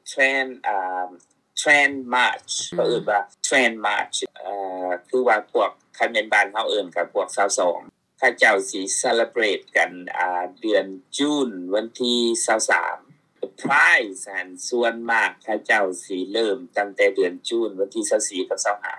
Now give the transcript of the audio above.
Trans ອ່າ Trans March ເຂົາເອີ້ນວ່າ Trans March ເອີ ຄືວ່າພວກ ຄັນແມ່ນບ້ານເຮົາເອີ້ນກໍພວກຊາວສອງ ເຂົາເຈົ້າຊິ celebrate ກັນ ອ່າ ເດືອນຈູນ ວັນທີຊາວສາມ. Pride ຫັ້ນ ສ່ວນມາກເຂົາເຈົ້າຊິເລີ່ມຕັ້ງແຕ່ເດືອນຈູນ ວັນທີຊາວສີ່ກັບຊາວຫ້າ.